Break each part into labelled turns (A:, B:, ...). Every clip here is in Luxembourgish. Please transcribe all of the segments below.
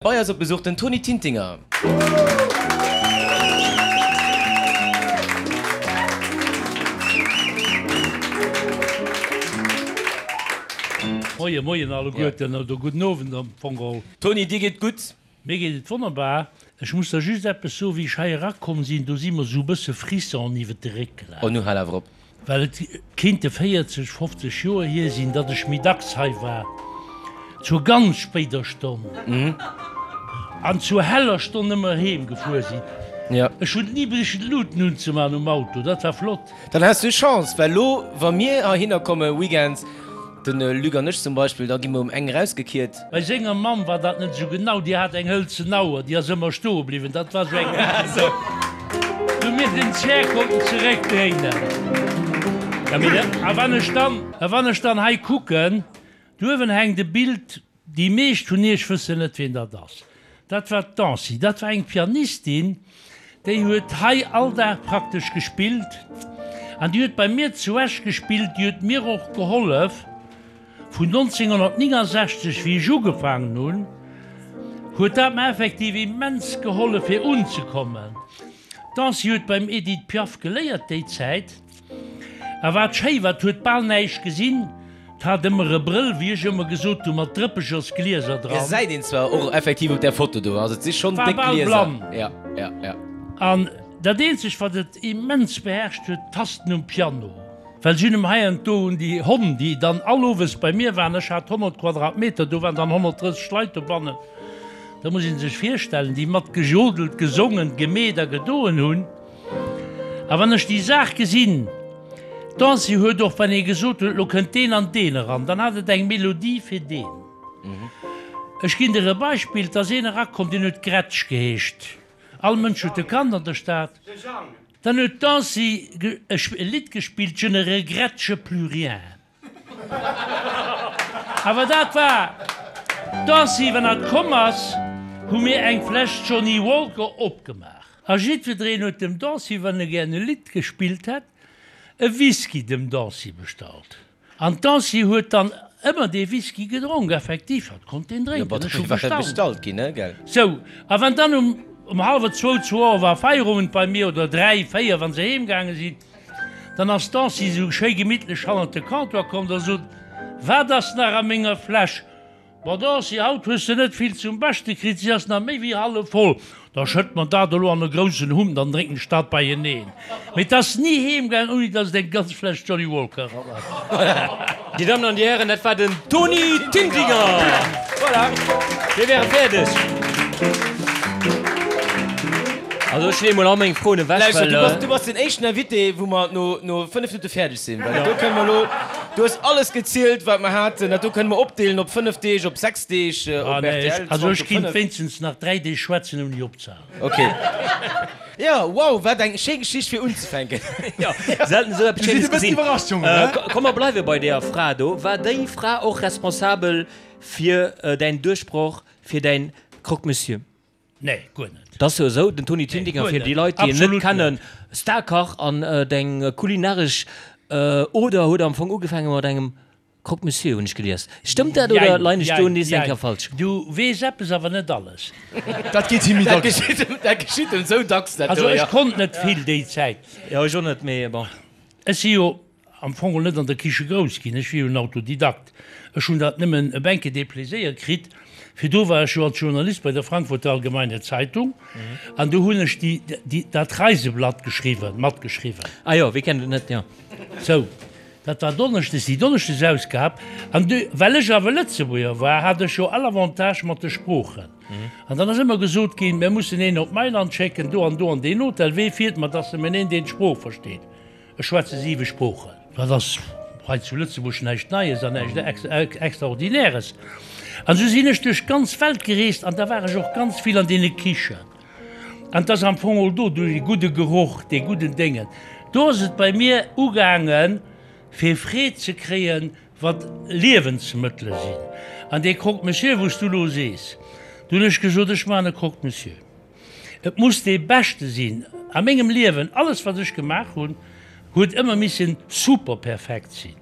A: Bei eis op Besuch den Tony Tintinger.
B: Moien, moien alleguerten, oder gudden Owend am Fong geholl.
A: Tony, dir geet gutt?
B: Mir geet et wonnerbar. Ech muss der just eppes soen, wéi ech hei erakomm sinn, do si mer esou e bësse Frissonen iwwert de Réck gelaf.
A: Oh, nu hal awer op.
B: Well et kéinte 40, 50 Joer hier sinn, datt ech méi dacks hei war, zur ganz spéider Stonn an zur heller Stonn ëmmer heem gefuer sinn. Ech hunn ni brichen d'Luuten unzemaachen um Auto, dat war flott.
A: Dann has du Chance, well lo wa mir heihinner komme weekends, de Luc an ech zum Beispill, da gi mer um eng erausgekiert.
B: Bei senger Mamm war dat net esou genau, déi hat eng hëlzen Auer, déi ass ëmmer stoe bliwwen, dat war esou eng, wou mir den Zär konnten zeréckdréinen. A wann ech dann, a wann ech dann hei kucken, do uewen hänkt e Bild, déi meescht vun iech wëssen net, wien dat ass, dat war d'Nancy, dat war eng Pianistin, déi huet hei all Dag praktesch gespillt an déi huet bei mir zu Esch gespillt, déi huet mir och gehollef. Vun 1969, wéi ech ugefaangen hunn, huet dat mer effektiv immens gehollef fir unzekommen. D'Nancy huet beim Edith Piaf geléiert déi Zäit. A wat schéi war, 't huet bal näischt gesinn, 't hat ëmmer e Brëll, wéi ech ëmmer gesot hunn, mat Drëppechersglieser dran.
A: Gesäit een zwar och effektiv op där Foto do, also et si schonn
B: War
A: déck
B: bal
A: Glieser.
B: blann.
A: Ja, ja, ja.
B: An dat eenzegt, wat et immens beherrscht huet, d'Tasten um Piano. Well si hunn em hei an do un déi Honn, déi dann all owes bei mir waren, ech hat 100 Quadratmeter, do waren dann 130 Leit dobannen, da muss ee sech virstellen, déi mat gejodelt, gesongen, gemeet a gedoen hunn. A wann ech déi Saach gesinn, d'Ancy huet och, wann ee gesot huet, elo kënnt deen an deen eran, dann hat et eng Melodie fir deen. Ech ginn der e Beispill, 't ass een erakomm, deen huet Gretsch geheescht, all Mënsch huet e kannt an der Stad. Dann huet d'Nancy e Lidd gespillt, Je ne regrette plus rien. Awer dat war d'Nancy, wann hatt komm ass, hu mir eng Fläsch Johnnie Walker opgemaach. A jiddwereen huet dem Nancy, wann e gären e Lidd gespillt hätt, e Whisky dem Nancy bestallt. An d'Nancy huet dann ëmmer dee Whisky gedronk, effektiv, hatt konnt deen drénken, ech hu gestaunt. Sou, a wann dann um um hallwer zwou, zwou Auer war Feierowend bei mir, oder dräi, véier, wa se heem gaange sinn, dann ass d'Nancy esou schéi gemittlech hannert de Comptoir komm, da sot, Wat ass nach a menger Fläsch? Ma Dorothy, haut hues de net vill zum Beschte kritt, si ass nach méi wéi hallef voll. Da schëtt mer dat elo an e groussen Hump, dann drénken ech dat beieneen. Mee 't ass ni heem gaang, ouni dass et eng ganz Fläsch Johnnie Walker eran ass.
A: Dir Dammen an Dir Hären, dat war den Tony Tintinger! Voilà, mir wäre fäerdeg. Also ech leeë mol all meng Froen ewech, well. Lauschter, du bass den éischten Invité, wou mer no 5 Minutte fäerdeg sinn, well do kënne mer elo. Du hues alles gezielt, wat mer haten. Dat do kënne mer opdeelen op 5 Deeg, op 6 Deeg,
B: op
A: rtl. 20
B: Also ech kinnt wéinstens nach 3 Deeg schwätzen ouni opzehalen.
A: Ok. Jo, wow, wat eng schéi Geschicht fir unzefänken.
C: Jo, selten esou eppes
D: Schéines
C: gesinn.
D: Bëssen iwwerrascht, Jongen, he?
C: Komm, mer bleiwe bei deeër Fra do. War déi Fra och responsabel fir däin Duerchbroch, fir däin Croque-Monsieur?
B: Nee, guer net.
C: Et ass jo esou, den Tony
B: Nee,
C: Tintinger,
B: guer
C: fir déi
B: net.
C: Leit, déi en net
B: Absolut
C: kennen,
B: net.
C: Starkach an deng kulinaresch Oder huet am Fong ugefaange mat engem Croque Monsieur, hunn ech gelies. Stëmmt dat oder
B: Jein,
C: leien ech do
B: jein,
C: nees eng
B: jein.
C: Kéier falsch?
B: Du weess eppes, awer net alles.
D: Dat geet him méi
A: Dat
D: dacks.
A: geschitt em, dat geschitt em esou dacks, dat
B: Also
A: do,
B: ech
A: jo.
B: konnt net vill déi Zäit.
C: Jo, ech och net, mee bon.
B: Ech si jo am Fong och net an der Kiche grouss ginn, ech wier jo en Autodidakt, ech hunn dat nëmmen e Benke dee Pléséier kritt. Virdu war ech jo als Journalist bei der Frankfurter Allgemeine Zeitung an do hunn ech déi, déi, dat Reiseblatt geschriwwen, matgeschriwwen.
C: Ah jo, wie kennt et net, jo.
B: Sou, dat war donneschdes, déi Donneschdesausgab. An du, well ech awer Lëtzebuerger war, hat ech jo all Avantage mat de Sproochen. An dann ass ëmmer gesot ginn, mir mussen een op Mailand schécken, do an do an deen Hotel, wee fiert mat, dass nëmmen een, deen d'Sprooch versteet. Ech schwätze siwe Sproochen. Dat ass hei zu Lëtzebuerg näischt Neies an näischt Extraordinäres. An esou sinn ech duerch d'ganz Welt gereest an da war ech och ganz vill an deene Kichen. An 't ass am Fong och do, duerch dee gudde Geroch, dee gudden Déngen, do ass et bei mir ugaangen, fir Freed ze kréien, wat Liewensmëttele sinn. An dee Croque-monsieur, wou s du elo sees, do hunn ech gesot, ech maachen e Croque-monsieur. Et muss dee beschte sinn. A mengem Liewen, alles wat ech gemaach hunn, huet ëmmer missen super perfekt sinn.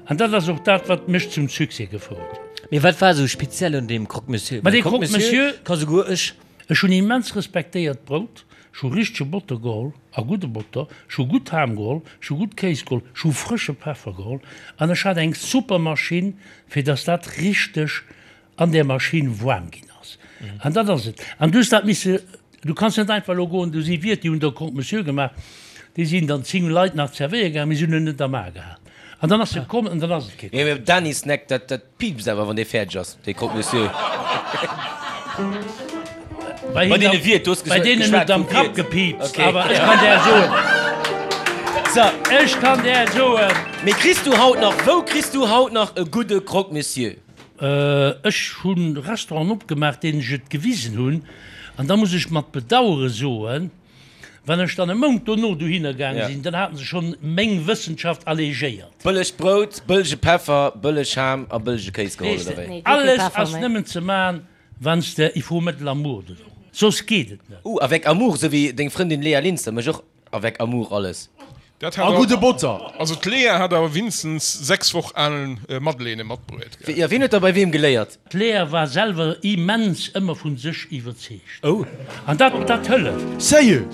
B: An dat ass och dat, wat mech zum Succès gefouert huet.
C: Mee wat war esou speziell un deem Croque-Monsieur?
B: Ma dee Croque-Monsieur
C: ka souguer ech.
B: Ech hunn immens respektéiert Brout, ech hu richtege Botter geholl, a gudde Botter, ech hu gutt Ham geholl, ech hu gutt Kéis geholl, ech hu frësche Peffer geholl an ech hat eng super Maschinn, fir dass dat richteg an där Maschinn waarm ginn ass. An dat ass et. An du hues dat misse, du kanns net einfach elo goen, do si Wiert, déi hunn der Croque-Monsieur gemaach, déi sinn dann 10 Leit nach zerwéiere gaangen, mee se hunn en net am A gehat. An dann ass e komm an dann ass et kee
A: komm. Mee Dany Snack, dat, dat piipst awer, wann dee fäerdeg ass, dee Croque-Monsieur.
B: Bei deene Wiert, du hues
A: Bei
B: deenen huet
A: geschwat
B: am
A: vum
B: Kapp
A: Wiert.
B: gepiipst,
A: Okay.
B: awer ech kann där soen,
A: So,
B: ech kann där soen.
A: mee kriss du haut nach, wou kriss du haut nach e gudde Croque-Monsieur?
B: Ech hu Restauranten opgemaach, deenen ech et gewisen hunn, an da muss ech mat Bedauere soen, wann ech dann e Mount dono dohinner gaange sinn, dann haten se schonn meng Wëssenschaft allégéiert.
A: Bëlleg Brout, bëllege Peffer, bëlleg Ham a bëllege Kéis geholl, oder wéi?
B: Alles ass nëmmen ze man, wann s de, il faut mettre l'amour dedans, soss geet et net.
A: Ouh, avec amour, esou wéi deng Frëndin Léa Linster mécht och Avec amour alles.
E: Dat
D: A
E: hat
D: gudde Botter.
E: Also d'Léa hat awer winstens 6 Woch al Madeleine matbruet, gell?
A: Jo, wien huet da bei weem geléiert?
B: D'Léa war selwer immens ëmmer vun sech iwwerzeegt.
A: Oh.
B: An dat, dat hëlleft.
D: Sérieux?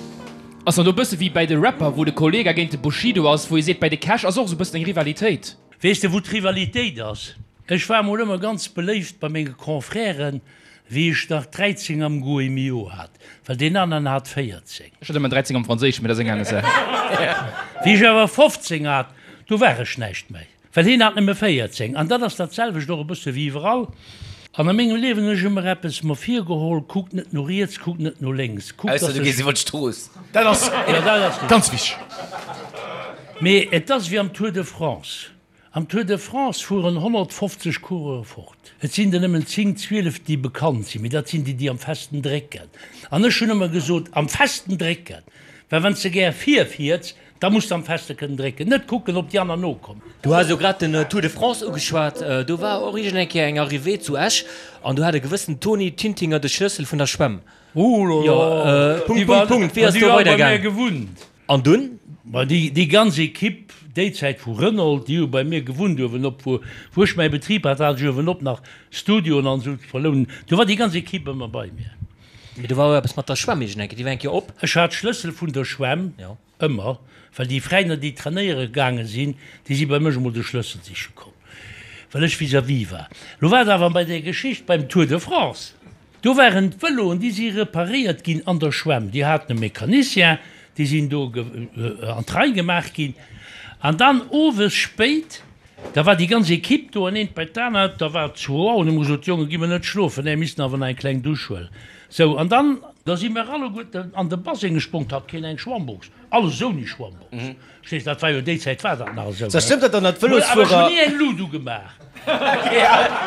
F: Ass dann do bësse wéi bäi de Rapper, wou de Kollegah géint de Bushido ass, wou ee seet, bäi de Cash ass och esou bëssen eng Rivalitéit.
B: Weess de wou d'Rivalitéit ass? Ech war mol ëmmer ganz beléift bei menge Confrèren, Wéi ech nach 13 am Goemio hat, well deen aneren hat 14.
F: Ech hat ëmmer 13 am Franséischen, mee dat ass eng aner Saach.
B: Wéi ech awer 15 hat, do war ech näischt méi, well hien hat nëmme 14. An dat ass dat selwecht och e bësse wéi iwwerall. An a mengem Liewen hunn ech ëmmer eppes mer virgeholl, Kuck net no riets, kuck net no lénks, kuck,
A: Ausser
B: dass
A: du gees
B: ech.
A: iwwer d'Strooss.
D: Dat ass
B: Jo, dat ass richtig.
D: ganz wichteg.
B: Mee et ass wéi am Tour de France. Am Tour de France fueren 150 Coureure fort. Et sinn der nëmmen 10, 12 déi bekannt sinn, mee dat sinn déi, déi am festen drécken. An ech hunn ëmmer gesot, am festen drécken, well wann s de gär virfiers, da muss de am feste kënnen drécken, net kucken, ob déi aner nokommen.
C: Du has elo grad den Tour de France ugeschwat. Do war och iergend eng Kéier eng Arrivée zu Esch an do hat e gewëssen Tony Tintinger de Schlëssel vun der Schwämm.
B: Ouh là là,
C: Punkt, Punkt, Punkt, wéi ass do weidergaangen?
B: Gewunnt.
C: An dunn?
B: Ma déi, déi ganz Equipe, déi Zäit vu Renault, déi hu bei mir gewunnt uewenop, wou, wou ech mäi Betrib hat, hat ech uewenop nach Studioen an esou ze verlounen. Do war déi ganz Equipe ëmmer bei mir.
C: Mee do war och eppes mat der Schwämm iergend eng Kéier, déi war eng Kéier op.
B: Ech hat d'Schlëssel vun der Schwämm ëmmer, well déi Fräiner, déi trainéiere gaange sinn, déi si bei mech emol de Schlëssel siche komm, well ech vis-à-vis war. Lo war et awer bei där Geschicht beim Tour de France. Do waren d'Vëloen, déi si reparéiert ginn an der Schwämm. Déi haten e Mecanicien, déi sinn do an d'Rei gemaach ginn. An dann owes spéit, da war déi ganz Equipe do an eent bei d'anert, da war et zwou Auer, an hu mer gesot, Jongen, gi mer net schlofen, nee, mir missten awer nach eng kleng Dusch huelen. Sou, an dann, da si mer alleguerten an de Baseng gesprong, 't hat keen eng Schwammbox, alles ouni Schwammbox. Verstees, dat war jo déi Zäit war dat nach esou.
A: Sou, stëmmt dat dann, datt
B: Awer ech hunn
A: d'Vëlosfuerer.
B: ni eng Lut ugemaach.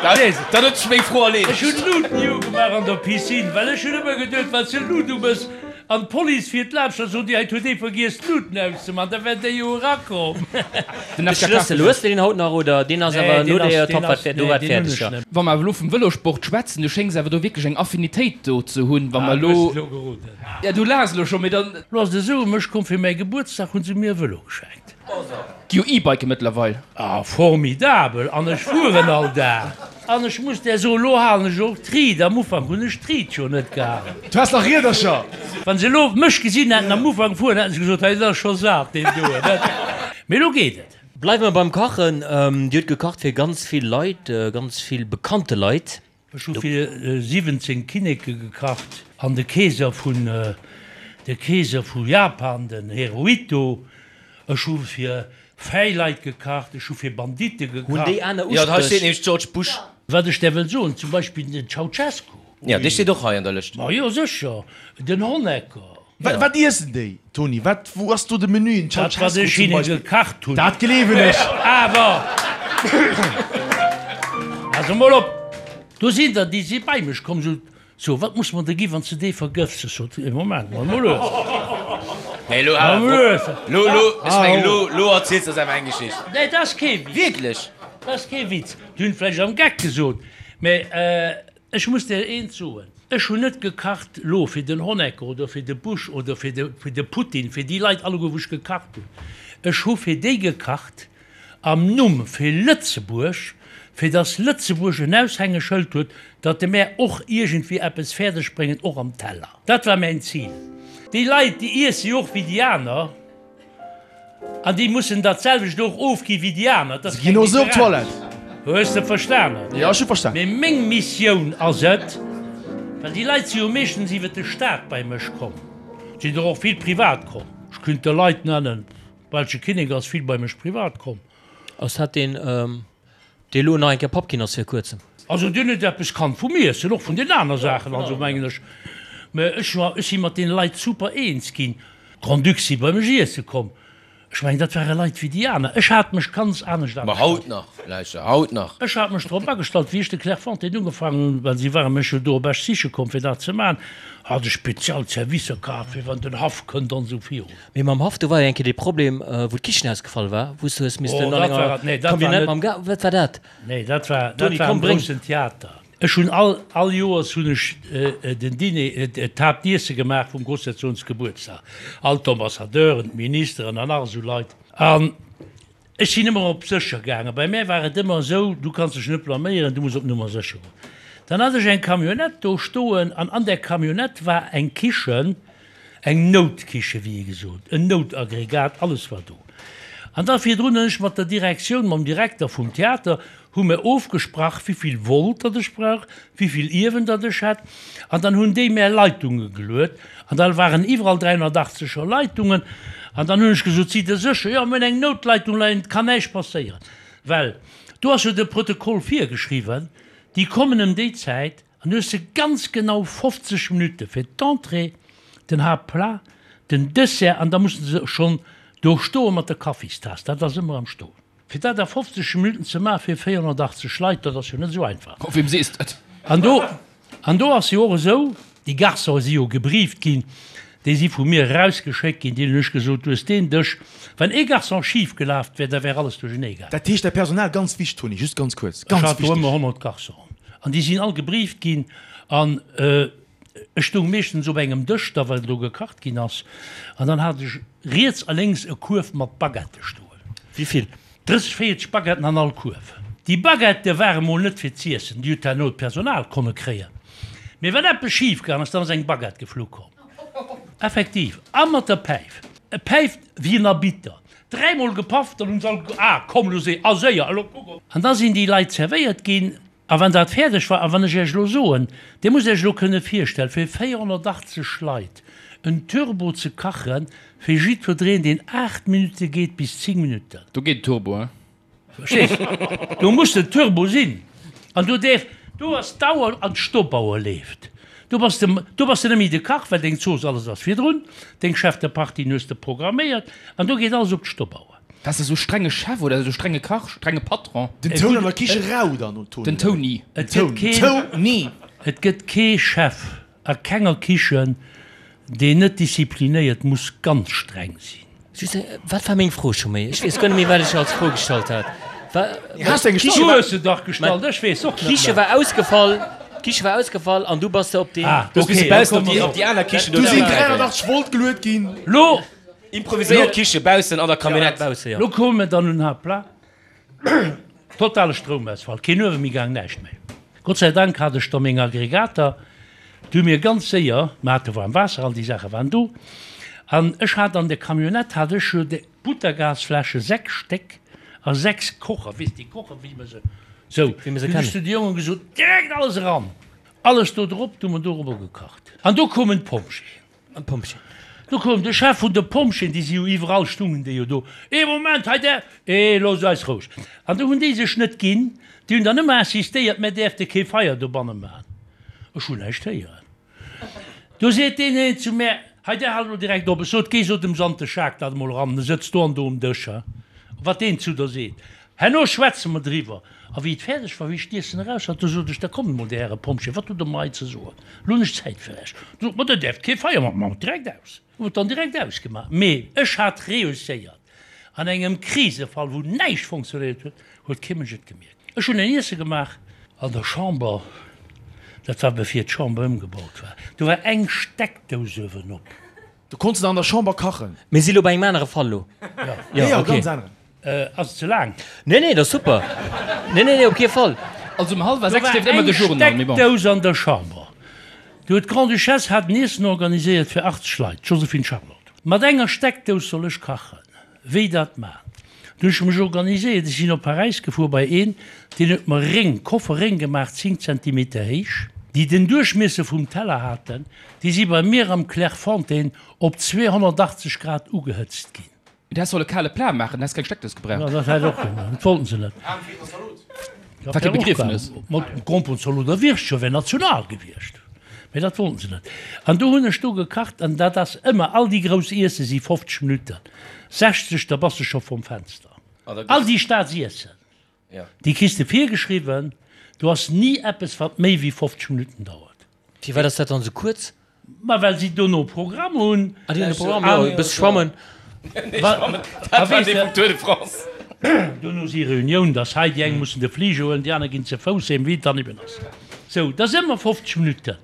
A: Dann huet sech meng Fro erleedegt.
B: Ech hunn d'Lut ni ugemaach an der Piscine, well ech hunn ëmmer geduet, wann s de Lut umëss an d'Police fiert laanscht, da soen déi, hei huet ee vergiess d'Luten auszemaachen, da wär déi jo erakomm.
F: Den
C: De
F: FKK
C: Schlëssel, hues de deen haut nach oder deen ass
B: Nee,
C: awer
B: deen
C: no
B: ass,
C: der
B: deen
C: Top
B: ass,
C: do
B: nee,
C: war
B: deen hunn
C: fäerdeg,
B: ech
C: jo.
B: net.
F: Wa mer awer elo vum Vëlosport schwätzen, du schéngs awer do wierklech eng Affinitéit do ze hunn, wa
B: Ah,
F: mer
B: du hues
F: elo.
B: et elo geroden.
F: Ja, du laachs elo scho, mee dann.
B: Lo ass et esou, mech komm fir mäi Gebuertsdag hunn se mir e Vëlo geschenkt.
F: Gi jo E-Bike mëttlerweil.
B: Ah, formidabel! An ech fueren all Dag. An ech muss där soen, lo halen ech och d'Ried. Am Ufank hunn ech d'Ried jo net gehalen.
D: Du has nach Riedercher!
B: Wann se elo mech gesinn hätten am Ufank fueren, hätten se gesot, hei, dat ass scho sat, deen doen. Mee elo geet et.
C: Bleiwe mer beim Kachen. Dir hutt gekacht fir ganz vill Leit, ganz vill bekannte Leit.
B: Ech hu fir 17 Kinneke gekacht an de Keeser vun de Keeser vu Japan, den Hirohito. Ech hu fir fäi Leit gekacht, ech hu fir Banditte
C: Hunn
B: gekacht.
C: déi aner
A: Jo, hei steet
C: Uspréch?
A: nämlech George Bush.
B: Wat ech där wëll soen, zum Beispill den Ceaucescu.
A: Jo, dee steet och hei an der Lëscht.
B: Ma jo, sécher, den Honecker.
D: Wat, wat iessen déi, Toni? Wat, wou ass do de Menü? En
B: Dat, wat
D: Ceausescu
B: ech
D: zum
B: hinnen
D: Beispill.
B: gekacht hunn.
D: Dat gleewen ech.
B: Awer, also mol op, do sinn der, déi si bei mech komm, sot, So, wat muss mer der gi wann s de dee vergëffs? Ech sot, Ee Moment mol, mol lues.
A: Nee, lo,
B: Mol lues.
A: lo, lo, ech mengen, lo, lo erziels de eis awer eng Geschicht.
B: Nee, dat ass kee Witz.
A: Wierklech?
B: Dat ass kee Witz. Déi hunn et vläicht am Geck gesot, mä Ech muss der eent soen, Ech hunn net gekacht lo fir den Honecker oder fir de Bush oder fir de fir de Putin, fir déi Leit alleguer wou ech gekacht hunn. Ech hu fir déi gekacht. Am Numm fir Lëtzebuerg, fir datt Lëtzebuerg en Aushängeschëld huet, datt de mär och iergendwéi eppes fäerdeg bréngen, och am Teller. Dat war mäin Zil. Déi Leit, déi iesse jo och wéi déi aner an déi mussen dat selwecht och ofgi wéi déi aner. Dat ass
D: Si ginn och esou op d'Toilette.
B: Hues de verstanen?
D: Jo, ech hu verstanen.
B: Mee meng Missioun ass et, well déi Leit si jo meeschtens iwwer de Staat bei mech komm, et sinn der och vill privat komm, ech kéint der Leit nennen, Belsche Kinnek ass vill bei mech privat komm.
C: Ass dat deen, dee lo nach eng Kéier Papp ginn ass vir kuerzem?
B: Also deen huet eppes kannt vum Iessen, och vun den aner Saachen, also mengen ech. Mä ech war, ech si mat deene Leit super eens ginn. Grand-Duc si bei mech iesse komm. Ech mengen, dat ware Leit wéi déi aner. Ech hat mech ganz anescht
A: Ma haut nach, lauschter, haut nach.
B: Ech hat mech drop agestallt, wéi ech de Clairefontaine ugefaangen hunn, well si ware mech jo do op Esch siche komm, fir dat ze maachen, hat ech spezial Servicer kaf, fir wann den Haff kënnt an esou virun.
C: Mee mam Haff, do war jo eng Kéier dee Problem, wou d'Kichen ausgefall war, wou s du hues missten
B: Oh,
C: an
B: dat war
C: enger
B: et, nee, dat war
C: Camionnette
B: net.
C: mam Ga-, wat war dat?
B: Nee, dat war, dat
C: Toni,
B: war
C: komm,
B: am
C: bréng.
B: groussen Theater. Ech hunn all, all Joers hunn ech den Diner, d'Haaptiesse gemaach vum Grossherzogensgebuertsdag. All d'Ambassadeuren, d'Ministeren an nach esou Leit. An Ech sinn ëmmer op sécher gaangen. Bei mär war et ëmmer esou, du kanns dech net blaméieren, du muss op Nummer sécher goen. Dann hat ech eng Camionnette do stoen an an där Camionnette war eng Kichen, eng Noutkiche wéi ee gesot, en Noutaggregat, alles war do. An da virdrun hunn ech mat der Direktioun, mam Direkter vum Theater, hu mir ofgesprach, wéivill Volt datt ech brauch, wéivill Iewen datt ech hätt. An dann hunn déi mär Leitunge geluet an da waren iwwerall 380 er Leitungen. An dann hunn ech gesot, Sidd Der sécher? Jo, mir hunn eng Noutleitung leien, et kann näischt passéieren. Well do ass jo de Protokoll virgeschriwwen, déi kommen ëm déi Zäit an du hues se ganz genau 50 Minutte fir d'Entrée, den Haaptplat, den Dessert an da musse se schonn do stoe mat der Kaffistaass. Dat ass ëmmer am Stoen. Fir dat a 50 Minutten ze maachen fir 480 Leit, dat ass jo net esou einfach.
F: Oh, weem sees dat?
B: An do, an do ass jo och esou, déi Garçonen si jo gebrieft ginn, déi si vu mir erausgeschéckt ginn, deenen hunn ech gesot, du hues deen Dësch, wann ee Garçon schif gelaf wär, da wär alles duerchenee gaangen.
D: Dat heescht, däi Personal, ganz wichteg, Toni, just ganz kuerz,
B: Ech
D: ganz
B: hat do
D: wichteg.
B: ëmmer 100 Garçonen an déi sinn all gebrieft ginn an ech stoung meeschtens op engem Dësch da, well do gekacht ginn ass, an dann hat ech riets a lénks e Kuerf mat Baguettë stoen.
C: Wéi vill?
B: 30, 40 Baguetten an all Kuerf. Déi Baguettë ware mol net fir z'iessen, déi huet herno d'Personal konne kréien. Mee wann eppes schif gaang ass, dann ass eng Baguette geflu komm. Effektiv. A mat der Päif. E päift wéi en Arbitter. Dräimol gepaff, dann hunn se all ge, Ah, komm, elo séier, a séier, elo kuck op. An da sinn déi Leit zerwéiert ginn. A wann dat fäerdeg war, a wann ech Iech elo soen, Dir musst Iech elo kënne virstellen, fir 480 Leit en Turbo ze kachen, fir jiddwereen, deen 8 Minutte geet bis 10 Minutten.
F: Do geet den Turbo, hein?
B: Verstees? Do muss den Turbo sinn. An do däerf, do ass d'Auer an d'Stoppauer leeft. Do bass de, do bass de net méi de Kach, well deng Zooss, alles ass virdrun, deng Chef de Partien hues de programméiert an do geet alles op d'Stoppauer.
F: Waars de sou strenge Chef oder sou strenge Kach, strenge Patron?
D: Den Toun an der Kiche rau dann, Toni.
F: Den Toni.
B: Et gëtt keen,
D: Toni.
B: et gëtt kee Chef a kenger Kichen, deen net disziplinéiert muss ganz streng sinn.
C: Just eng, wat war meng Fro scho méi? Ech weess guer net méi, wat ech als Fro gestallt hat. Wa,
D: Has de eng
B: Du
D: gestallt?
B: hues se dach gestallt, ech weess och net
C: D'Kiche
B: méi.
C: war ausgefall, d'Kiche war ausgefall an du bass de op deen.
B: Ah,
A: Du hues misse
B: okay, da
A: baussen op
B: komme
A: déi,
B: mer
A: op déi aner Kichen
D: Du
A: do
D: sinn
A: zréckgräifen.
D: 380 Volt geluet ginn.
B: Lo,
A: Improviséiert Kiche baussen an der Camionnette.
C: Bausse, jo.
B: Lo koume mer dann un Haaptplat. Totale Stroumausfall, keen Uewe méi gaang, näischt méi. Gott sei Dank hat ech da meng Aggregater, déi hu mir ganz séier, mer hate waarm Waasser, all déi Saache waren do. An ech hat an der Camionnette hat ech jo déi Butagasfläsche, 6 Stéck a 6 Kocher, weess déi Kocher wéi mer se, sou,
C: Wéi mer se
B: dunn hu ech
C: kennen.
B: zu de Jongen gesot, direkt alles eran, alles do drop, du hu mer dorobber gekacht. An do koumen d'Pompjeeën.
C: An d'Pompjeeën.
B: Do koum de Chef vun de Pompjeeën, déi si jo iwwerall, stungen déi jo do, Ee Moment, hei där, ee loosst eis roueg. An do hunn déi sech net ginn, déi hunn dann ëmmer insistéiert, mär däerfte kee Feier dobanne maachen. Ech hunn näischt héieren. Do seet deen een zu mär, hei där halt elo direkt op. Ech sot, géi so dem Sante Schaak dat emol eran, e sëtzt do an do um Dësch, he, wat deen zu der seet. Herno schwätze mer driwwer. A wéi et fäerdeg war, wéi ech d'Iessen eraus hat, du sot ech, Da kommt emol, Dir Häre Pompjeeë, wat hutt Der mer hei ze soen? Elo hunn ech Zäit fir Iech. Du sot mer, Der däerft kee Feier maachen. Maachen direkt aus. Hu et dann direkt ausgemaach. Mee ech hat reusséiert. An engem Krisefall, wou näischt fonctionnéiert huet, huet kee Mënsch et gemierkt. Ech hunn en Iesse gemaach an der Chamber, dat war bevir d'Chamber ëmgebaut war, do war eng Steckdous uewenop.
D: Du konns de an der Chamber kachen?
C: Mir si lo bei engem anere Fall lo.
D: Jo, jo, ganz aneren.
B: Ass et ze laang?
C: Nee, nee, dat ass super. Nee, nee, nee, op kee Fall.
F: Also um hallwer 6 leeft ëmmer de Journal, mee bon.
B: Do war eng Steckdous an der Chamber. Do huet d'Grande-Duchesse hat en Iessen organiséiert fir 80 Leit, d'Joséphine Charlotte. Mat enger Steckdous soll ech kachen. Wéi dat man? Du hunn ech mech organiséiert, ech sinn op Paräis gefuer bei een, deen huet mer Réng, Koffer Réng gemaach, 10 Zentimeter héich, déi den Duerchmiesser vum Teller haten. Déi si bei mir am Clairefontaine op 280 Grad ugehëtzt ginn.
F: Du häss solle kale Plat maachen, dann häss keng Steckdous gebraucht.
B: Jo, dat hätt och gemaach. Dat wollten se net.
F: Wat kee Begriefnes.
B: Mat Gromperenzalot a Wirschtscho wär national gewiescht. Mee dat wollten se net. An do hunn ech do gekacht an dat ass ëmmer, all déi grouss Iesse si 50 Minutten, 60, da bass de scho vrum Fenster. All déi Staatsiessen. Déi kriss de virgeschriwwen. Do ass ni eppes, wat méi wéi 50 Minutten dauert.
C: Firwat ass dat dann esou kuerz?
B: Ma well si dono Programm hunn.
C: Ah, déi hunn e Programm, jo, e bësse schwammen.
A: Dat war dee vum Tour de France.
B: Dono si Reunioun, dass hei déi eng mussen de Fliger huelen, déi aner ginn ze Fouss heem, wéi et dann eben ass. Sou, dat ass ëmmer 50 Minutten.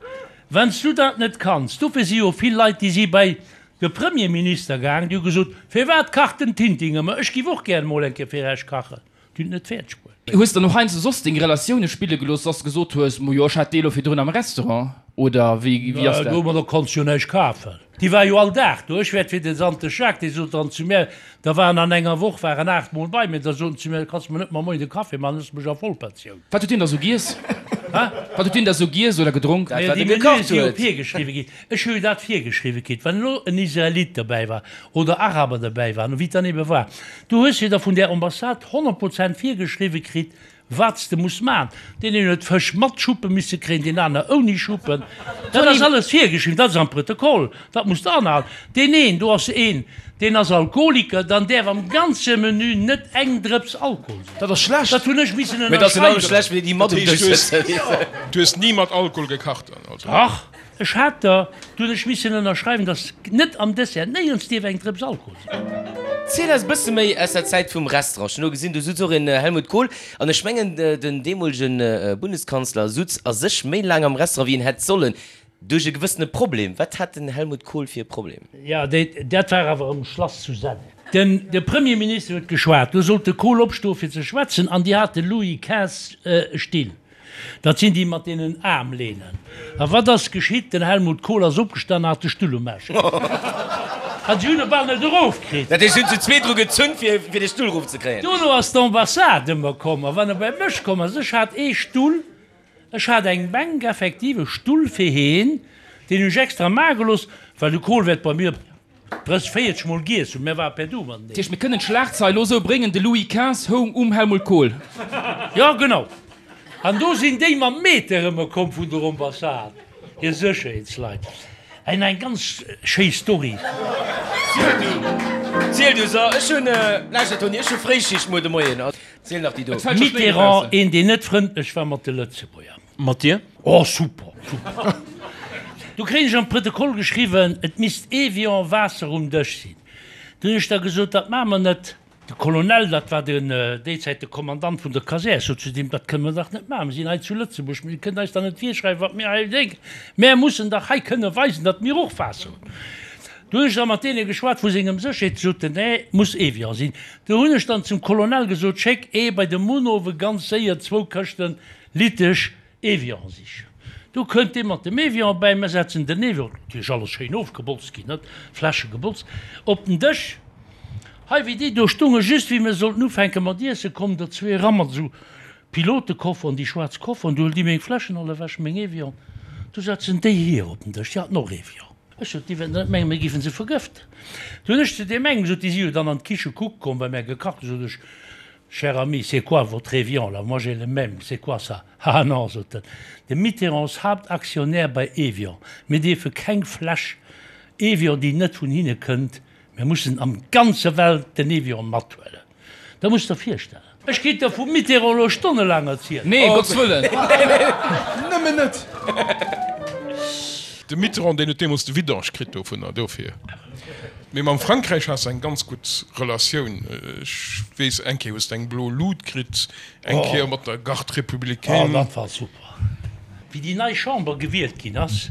B: Wann s du dat net kanns, dofir si jo vill Leit, déi si bei de Premierminister gaang, déi hu gesot, Firwat kacht den Tintin ëmmer? Ech giff och gär emol eng Kéier fir Iech kachen. Déi hunn et net fäerdeg bruet.
F: Hues de dann och heiansdo soss deng Relatioune spille gelooss, dass de gesot hues, Mo jo, ech hat déi elo virdrun am Restaurant, oder wéi, wéi ass dat?
B: Domadder konns jo näischt kafen. Déi war jo all Dag do. Ech wäert fir den Sante Jacques, dee sot dann zu mär, da waren an enger Woch waren 8 mol bei mir, da sot en zu mär, kanns mer net mar moien de Café maachen, hues mech a Vollpensioun.
F: Wat huet hien da sou giess? Wat huet hien da sou giess oder gedronk?
B: Dat, wat e gekacht huet. Déi Menüe si jo virgeschriwwe ginn. Ech hu jo dat virgeschriwwe kritt, wann elo en Israelit derbäi war oder Araber derbäi waren, wéi et dann ebe war, du hues jo da vun där Ambassade 100 Prozent virgeschriwwe kritt, wat s de muss maachen. Deen een huet Fësch mat Schuppe misse kréien, deen aner ouni Schuppen. Dat ass alles virgeschriwwen, dat ass am Protokoll, dat muss de anhalen. Deen een, do ass een, deen ass Alkoholiker, dann däerf am ganze Menü net eng Drëps Alkohol sinn.
D: Dat ass schlecht.
B: Dat hunn ech missen
A: Mee dat ass genau schlecht, wéi déi mat um Dësch sëtzen.
E: Du hues ni mat Alkohol gekacht dann also?
B: Dach. Ech hat der, du hunn ech missen ënnerschreiwen, dass net am Dessert néierens dierf eng Drëps Alkohol sinn.
A: Ziel eis e bësse méi aus der Zäit vum Restaurant. Ech hunn elo gesinn, do sutz och en Helmut Kohl. An ech mengen, den deemolegen Bundeskanzler sutz a sech méi laang am Restaurant, wéi en hätt sollen, duerch e gewëssene Problem. Wat hat den Helmut Kohl fir e Problem?
B: Jo, dat war awer um Schlass zu Senneng. Den de Premierminister huet geschwat, do sollt de Kohl opstoe fir ze schwätzen, an déi hate Louis quinze Still. Dat sinn déi mat deenen Aarmlehnen. A wat ass geschitt? Den Helmut Kohl ass opgestan a hat de Stull um Aarsch kritt. A si hunn e bal net erofkritt.
A: Dat heescht, si hunn zu zweet dru gezunn, fir de Stull erofzekréien?
B: Dono ass d'Ambassade ëmmer komm. A wann e bei mech komm ass, ech hat ee Stull, ech hat eng Bänk, effektiv e Stull fir heen, deen hunn ech extra maache gelooss, well de Kohl wäert bei mir 30, 40 mol giess hunn, mär ware per Du mateneen.
F: Dat heescht, mir kënnen d'Schlagzeil elo esou bréngen, De Louis quinze houng um Helmut Kohl.
B: Jo, genau. An do sinn déi mam Meter ëmmer komm vun der Ambassade, hir Sécherheetsleit. An eng ganz schéi Story.
A: Ziel du, ziel du. So, ech hunn, lauschter Toni, ech hu Fréischicht muer de Moien. Ziel nach déi do.
B: Mitterrand, een deen net frëndlech war mat de Lëtzebuerger.
C: Mat dir?
B: Oh super, super. Du kréien ech am Protokoll geschriwwen, et misst Evian Waasser um Dësch sinn. Du hunn ech da gesot, dat maache mer net. De Colonel, dat war den déi Zäit de Kommandant vun der Kasär, sot zu deem, dat kënne mer dach net maachen, mir sinn hei zu Lëtzebuerg, mir kënnt eis dach net virschreiwen, wat mir hei drénken, mär mussen dach hei kënne weisen, datt mir och Waasser hunn. Du hunn ech da mat deene geschwat vu sengem Sécherheet, déi soten, nee, muss Evian sinn. Du hunn ech dann zum Colonel gesot, schéck ee bei de Munhowe ganz séier zwou Këschten Litesch Evian sichen. Do kënnt dee mat dem Evian bäi, mir setzen den Evian, natierlech alles schéin ofgebotzt ginn, net, Fläsche gebotzt, op den Dësch. Hei, wéi déi do stongen, just wéi mir sollten ufänke mat iessen, kommen der zwee eran mat esou Pilotekofferen, déi schwaarz Kofferen, du huelen déi meng Fläschen all ewech, meng Evian, du setzen déi hier op den Dësch, déi haten och Evian. Ech sot, déi wäerten net mengen, mir géifen se vergëften. Du hunn ech zu deem engem gesot, déi si jo dann an d'Kiche kucke komm, well mär gekacht hunn, sot ech, Cher ami, c'est quoi votre Evian là? Moi j'ai le même, c'est quoi ça? Ah non, sot en, de Mitterrand ass Haaptaktionär bei Evian, mir dierfe keng Fläsch Evian, déi net vun hinne kënnt, mir mussen am ganze Welt den Evian mathuelen. Dat muss der virstellen. Ech kéint der vum Mitterrand elo stonnelaang erzielen.
F: Nee, Gottes Wëllen!
D: Nëmmen net!
E: De Mitterrand, deen huet deemools de Vidange kritt dovunner, dofir. Mee mam Frankräich has de eng ganz gutt Relatioun. Ech weess, eng Kéier hues de eng blo Lut kritt, eng Kéier mat der Garde républicaine.
B: Oh, dat war super. Wéi déi nei Chamber gewielt ginn ass,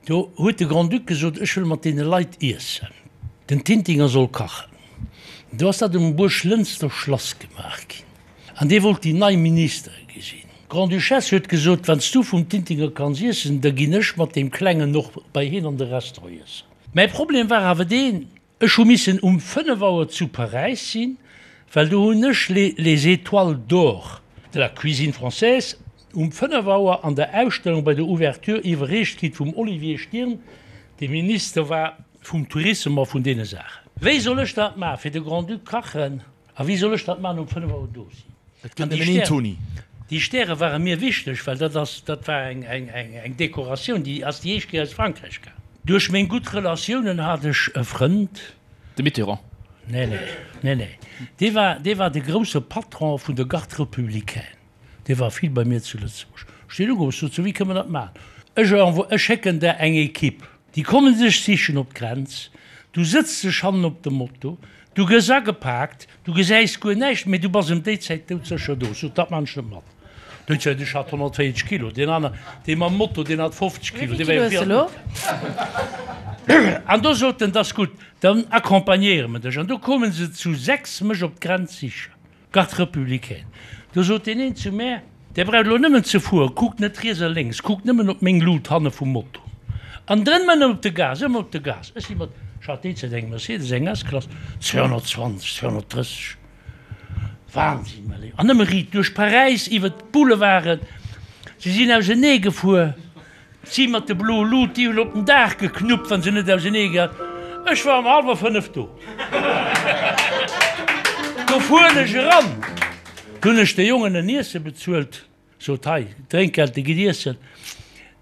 B: do huet de Grand-Duc gesot, ech wëll mat deene Leit iessen. Den Tintinger soll kachen. Do ass dat um Buerglënster Schlass gemaach ginn. An dee wollt déi nei Ministere gesinn. D'Grande-Duchesse huet gesot, Wann s du vum Tintinger kanns iessen, da ginn ech mat deem Klengen och bei hien an de Restaurant iessen. Mäi Problem war awer deen, Ech hu missen um 5 Auer zu Paräis sinn, well do hunn ech les Étoiles d'or de la cuisine française um 5 Auer an der Ausstellung bei der Ouverture iwwerreecht kritt vum Olivier Stirn, dee Minister war vum Tourissem a vun deene Saachen. Wéi soll ech dat maachen, fir de Grand-Duc kachen? A wéi soll ech dat maachen, um 5 Auer do sinn?
D: Et gëtt nëmmen een Toni.
B: Déi Stäre ware mir wichteg, well dat ass, dat war eng, eng, eng, eng Dekoratioun, déi ass déi éischt Kéier aus Frankräich gaang. Duerch meng gutt Relatiounen hat ech e Frënd.
F: De Mitterrand?
B: Nee, nee, nee, nee. Dee war, dee war de grousse Patron vun der Garde républicaine. Dee war vill bei mir zu Lëtzebuerg. Ech hunn deen ugeruff, ech sot, So, wéi kënne mer dat maachen? Ech envo, ech schécken der eng Equipe. Déi kommen dech sichen op d'Grenz. Du sëtz dech hannen op de Moto. Du gëss agepaakt, du gesäis guer näischt, mee du bass ëm déi Zäit doudsécher do. Sot, dat man ech net mat. Déi Zäit, ech hat 140 Kilo, deen aner, dee mam Moto, deen hat 50 Kilo, dee war jo vill méi. An do sot en, 't ass gutt, dann accompagnéiere mer dech. An do koume se zu 6 mech op d'Grenz sichen. Garde républicaine. Do sot deen een zu mär, Där braucht elo nëmmen ze fueren, kuckt net riets a lénks, kuckt nëmmen op meng Lut hanne vum Moto. An drënn ëmmer op de Gas, ëmmer op de Gas. Ech si mat, ech hat déi Zäit eng Mercedes, eng S-Klass, 220, 230, Wahnsinn, mäi Léiwen. An nëmme riit duerch Paräis, iwwer d'Boulevarden. Se sinn ausenee gefuer. Si mat de bloe Lut, déi hunn op den Daach geknuppt, wa se net ausenee gehat. Ech war um hallwer 5 do. Do fueren ech eran, do hunn ech de Jongen en Iesse bezuelt, sot, Hei, Drénkgeld, de gitt iessen.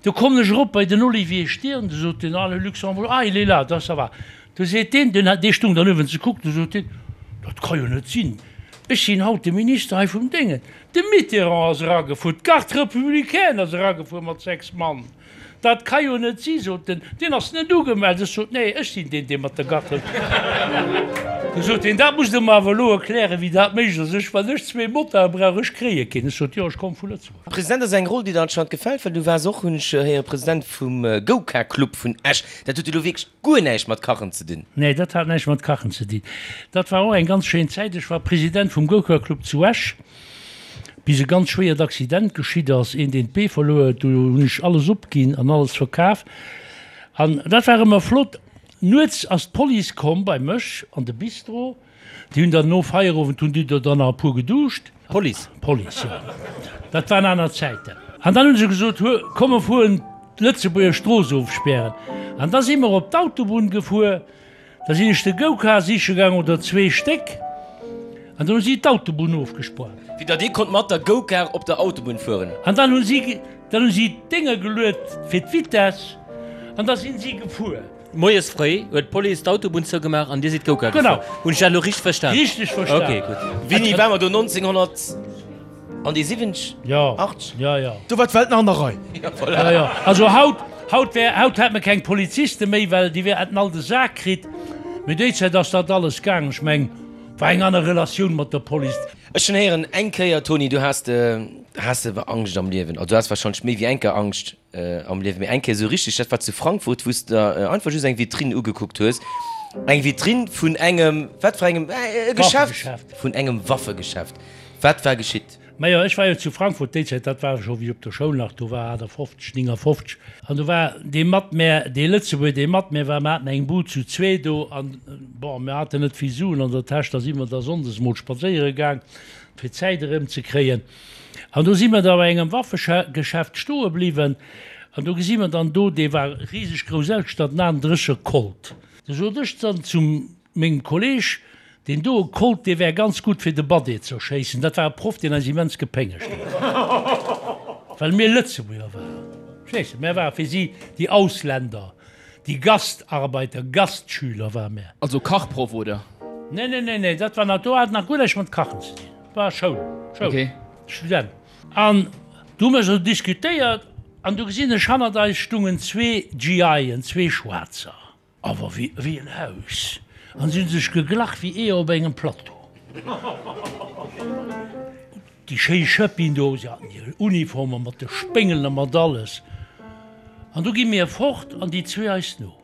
B: Do kommen ech erop bei den Olivier Stirn, du sot deen, Ah, le Luxembourg, ah, il est là, da ça va. Du seet deen, deen hat, dee stung dann uewen ze kucken, du sot deen, Dat ka jo net sinn, ech sinn haut de Minister hei vum Déngen. De Mitterrand ass eragefuer, d'Garde républicaine ass eragefuer mat 6 Mann. Dat ka jo net si, sot en, deen ass net ugemellt. Ech sot, Nee, ech sinn deen, dee mat der Garde républicaine. Du sot hien, Dat musst Der mer awer elo erklären, wéi dat méiglech ass. Ech, wann ech zwee Motarde brauch, ech kréie keen. Ech sot, Jo, ech komme vu Lëtzebuerg.
A: President ass eng Roll, déi der anscheinend gefält, well du waars och, hunn ech héieren, President vum Gouka-Club vun Esch. Dat huet jo elo wierklech guer näischt mat Kachen ze dinn.
B: Nee, dat hat näischt mat Kachen ze dinn. Dat war och eng ganz schéin Zäit. Ech war President vum Gouka-Club zu Esch, bis e ganz schwéiert Accident geschitt ass, een deen d'Bee verluer huet. Do hunn ech alles opginn an alles verkaf. An dat war ëmmer flott. Nuets ass d'Police komm bei mech an de Bistro. Déi hunn dann no Feierowend hunn déi do dann nach e puer geduscht.
C: Police?
B: Police, jo. Dat waren aner Zäiten. An dann hu se gesot, Hu, komm mer fueren d'Lëtzebuerger Strooss ofspären. An da si mer op d'Autobunn gefuer. Da sinn ech de Go-Car siche gaang, oder zwee Stéck, an dann hu si d'Autobunn ofgespaart.
A: Wéi datt ee konnt mat der Go-Car op der Autobunn fueren.
B: An dann hu si, dann hu si d'Dénger geluet fir d'Vitess, an da sinn si gefuer.
C: Moies fréi huet d'Police d'Autobunn zougemaach an dir sidd Go-Kart gefuer. Hunn ech dat elo richteg verstan?
B: Richteg verstan.
C: Ok, gutt.
A: Wéini war mer do? 1900 an déi 70?
B: Jo, jo, jo.
D: Do war d'Welt nach an der Rei.
A: Jo, voilà.
B: Jo, jo. Also haut, haut wär, haut hätt mer keng Poliziste méi, well déi wär, hätten all de Sak kritt. Mee déi Zäit ass dat alles gaang. Ech meng, war eng aner Relatioun mat der Police.
A: Ech hunn héieren eng Kéier, Toni, du has de, has de Angscht am Liewen. Also du has wahrscheinlech méi wéi eng Kéier Angscht. Am Liewen, mee eng Kéier esou richteg, dat war zu Frankfurt, wou s de der einfach just eng Vitrinn ugekuckt hues, eng Vitrinn vun engem, wat fir engem, e Geschäft, vun engem Waffegeschäft. Wat war geschitt?
B: Majo, ech war jo zu Frankfurt déi Zäit, dat war scho wéi ech op der Schoul nach do war, 58, 59, an do war dee mat mär, dee Lëtzebuerger, dee mat mär war, mer haten eng Bud zu zwee do an, bon, mir haten net vill Suen an der Täsch, da si mer da sonndes mol spadséiere gaang, fir d'Zäit erëmzekréien. An do si mer da bei engem Waffegeschäft stoe bliwwen an do gesi mer dann do, dee war riseg grouss ausgestatt, en 38er Colt. Du sot ech dann zu mengem Kolleg, deen doe Colt, dee wär ganz gutt fir de Badé ze erschéissen. Dat war e Proff, deen eis immens gepéngegt huet, well mir Lëtzebuerger waren. Verstees de, mär ware fir si déi Ausländer, déi Gastarbeiter, Gastschüler ware mär.
F: Also Kachproff, oder?
B: Nee, nee, nee, nee, dat war nach, do hat nach guer näischt mat Kachen ze dinn. War Schoul, Schoul,
F: Okay.
B: Student. An du hu mer esou diskutéiert an du gesinn ech, hannert eis stungen zwee GIen, zwee Schwaarzer, awer wéi, wéi en Haus. An si hu sech geglach wéi Eeër op engem Plateau. Déi schéi Schëppin do, si haten hir Uniformer mat de Spéngelen a mat alles. An du gi mir fort an déi zwee eis no.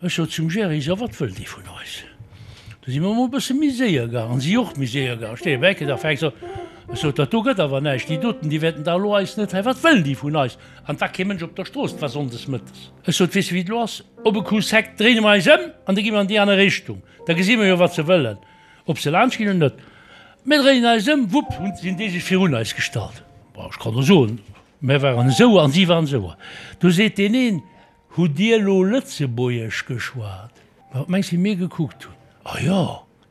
B: Ech sot zum Gerry, So, wat wëllt Dir vun eis? Du si mer emol e bësse méi séier gaang, an si och méi séier gaang. Ech steeë bei Ecke, da fänkt se un. Ech sot, Dat do gëtt awer näischt, déi doten, déi wäerten da elo eis net hei, wat wëllen déi vun eis? An et war kee Mënsch op der Strooss, et war sonndes mëttes. Ech sot, Weess de wéi et elo ass? Op e Coup sec dréine mer eis ëm an da gi mer an déi aner Richtung, da gesi mer jo wat se wëllen, ob se laanscht ginn oder net. Mir dréinen eis ëm, wupp, hunn sinn déi sech virun eis gestallt. Bon, ech kann der soen, mir waren esou an si waren esou. Du seet deen een, Hutt Dir elo Lëtzebuergesch geschwat? Ma wat mengs wéi mir gekuckt hunn? A jo,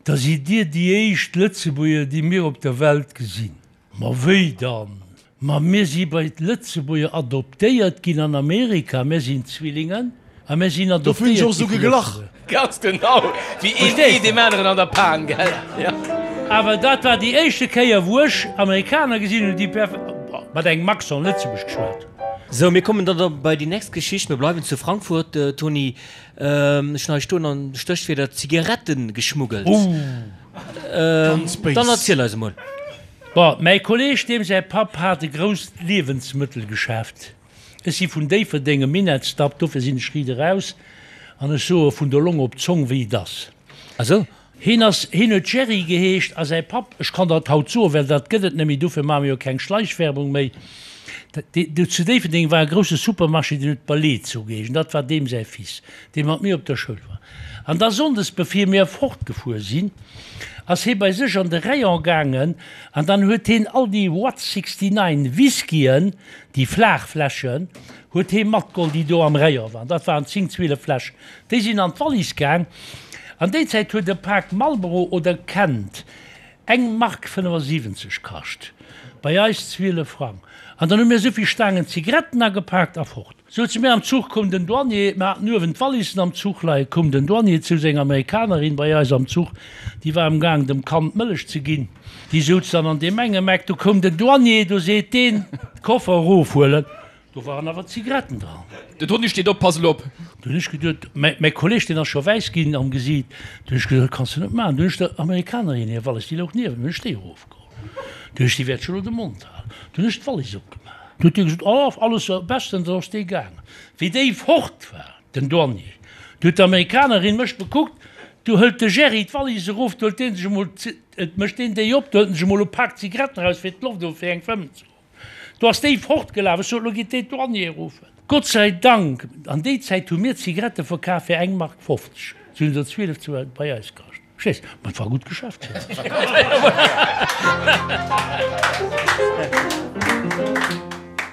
B: da sidd Dir déi éischt Lëtzebuerger, déi mir op der Welt gesinn. Ma wéi dann? Ma mir si bei d'Lëtzebuerger adoptéiert ginn an Amerika, mir sinn Zwillingen a mir sinn
D: Dofir hunn
B: adoptéiert
D: ech och
B: gi
D: esou
B: vu
D: geglach.
B: Lëtzebuerger.
A: Ganz genau, wéi een Ee deem aneren an der Pan, gell? Jo.
B: Awer dat war déi éischte Kéier, wou ech Amerikaner gesinn hunn, déi perf mat engem Accent Lëtzebuerg geschwat hunn.
C: Sou, mir kommen dann da bei déi nächst Geschicht. Mir bleiwen zu Frankfurt, Tony. Ech hunn hei stoen an Stéchwierder Zigaretten geschmuggelt.
D: Ganz béis.
C: Dann erziel eis emol.
B: Bon, mäi Kolleg, deem säi Papp hat e grousst Liewensmëttelgeschäft. Ech si vun Déifferdeng, e Minettsdapp, dofir sinn ech riit eraus an ech soe vun der Long op d'Zong, wéi et ass.
C: Ah sou.
B: Hien ass, hien huet Jerry geheescht a säi Papp, ech kann dat haut soen, well dat gëtt et net méi, dofir maache mir jo keng Schleichwerbung méi, do zu Déifferdeng war e grousse Supermarché, deen huet Balezo geheescht an dat war deem säi Fils, dee mat mir op der Schoul war. An da sonndes, bevir mir fortgefuer sinn, ass hie bei sech an de Rayon gaangen an dann huet hien all déi Watt 69 Whiskyen, déi flaach Fläschen, huet hie matgeholl, déi do am Rayon waren. Dat waren 10, 12 Fläschen. Déi sinn an d'Wallis gaang. An déi Zäit huet e Pak Marlboro oder Kent eng Mark 75 kascht, bei eis 12 Frang. An dann hu mir esouvill Staangen Zigaretten agepaakt a fort. Souze mir am Zuch, koum den Douanier, mir haten uewen d'Wallissen am Zuch leien, koum den Douanier zu senger Amerikanerin bei eis am Zuch, déi war amgaang dem Kand Mëllech ze ginn, déi souz dann an deem engem Eck, du koum den Douanier, du seet deen, d'Koffer erofhuelen. Do waren awer Zigaretten dran.
F: Den Toni steet op, Pass elo op!
B: Du hunn ech geduet, mäi Kolleg, deen ass scho wäiss ginn am Gesiit, du hunn ech geduet, dat kanns de net maachen. Du hunn ech der Amerikanerin hir Wallis, déi louch niewent mir, hunn ech déi erofgeholl. Du hunn ech, déi wäert scho elo de Mond halen. Du hunn ech d'Wallis opgemaach. Du huet déi gesot, Oh, alles bestens, an ass déi gaangen. Wéi déi fort war, den Douanier, du huet d'Amerikanerin mech bekuckt, du hëlt de Jerry d'Wallis erof, du hëlt dee sech emol, et mécht deen déi op, du hëlt en sech emol e Pak Zigaretten eraus, fir d'Loft of fir eng fëmmen ze goen. Do ass déi fortgelaf. Ech sot, Elo gitt déi d'Douanier ruffen. Gott sei Dank, an déi Zäit hu mir Zigarette verkaf fir eng Mark 50. Se hunn se 12 zu bei eis kascht. Verstees? Ma et war e gutt Geschäft.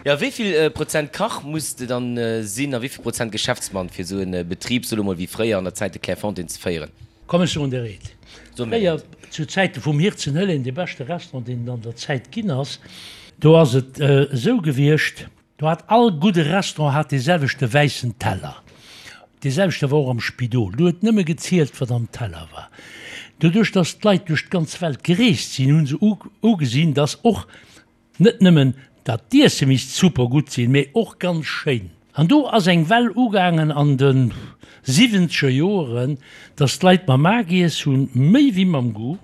A: Jo, wéi vill Prozent Kach muss de dann sinn a wéi vill Prozent Geschäftsmann, fir esou e Betrib, soe lo mol wéi fréier an der Zäit de Clairefontaine, ze féieren?
B: Komm ech soen der eent, Fréier, zu Zäite vum Hirzenhëllen, dee beschte Restaurant, deen et an der Zäit ginn ass, do ass et esou gewiescht, do hat all gudde Restaurant hat dee selwechte wäissen Teller, dee selwechte war och am Spidol, do huet nëmme gezielt, wat am Teller war. Doduerch, datt d'Leit duerch d'ganz Welt gereest sinn, hu se ugesinn, datt och Net nëmmen dat d'Iesse misst super gutt sinn, mee och ganz schéin. An do ass eng Well ugaangen an de siwwenzeger Joeren, dass d'Leit mam A giess hunn, méi wéi mam Goût,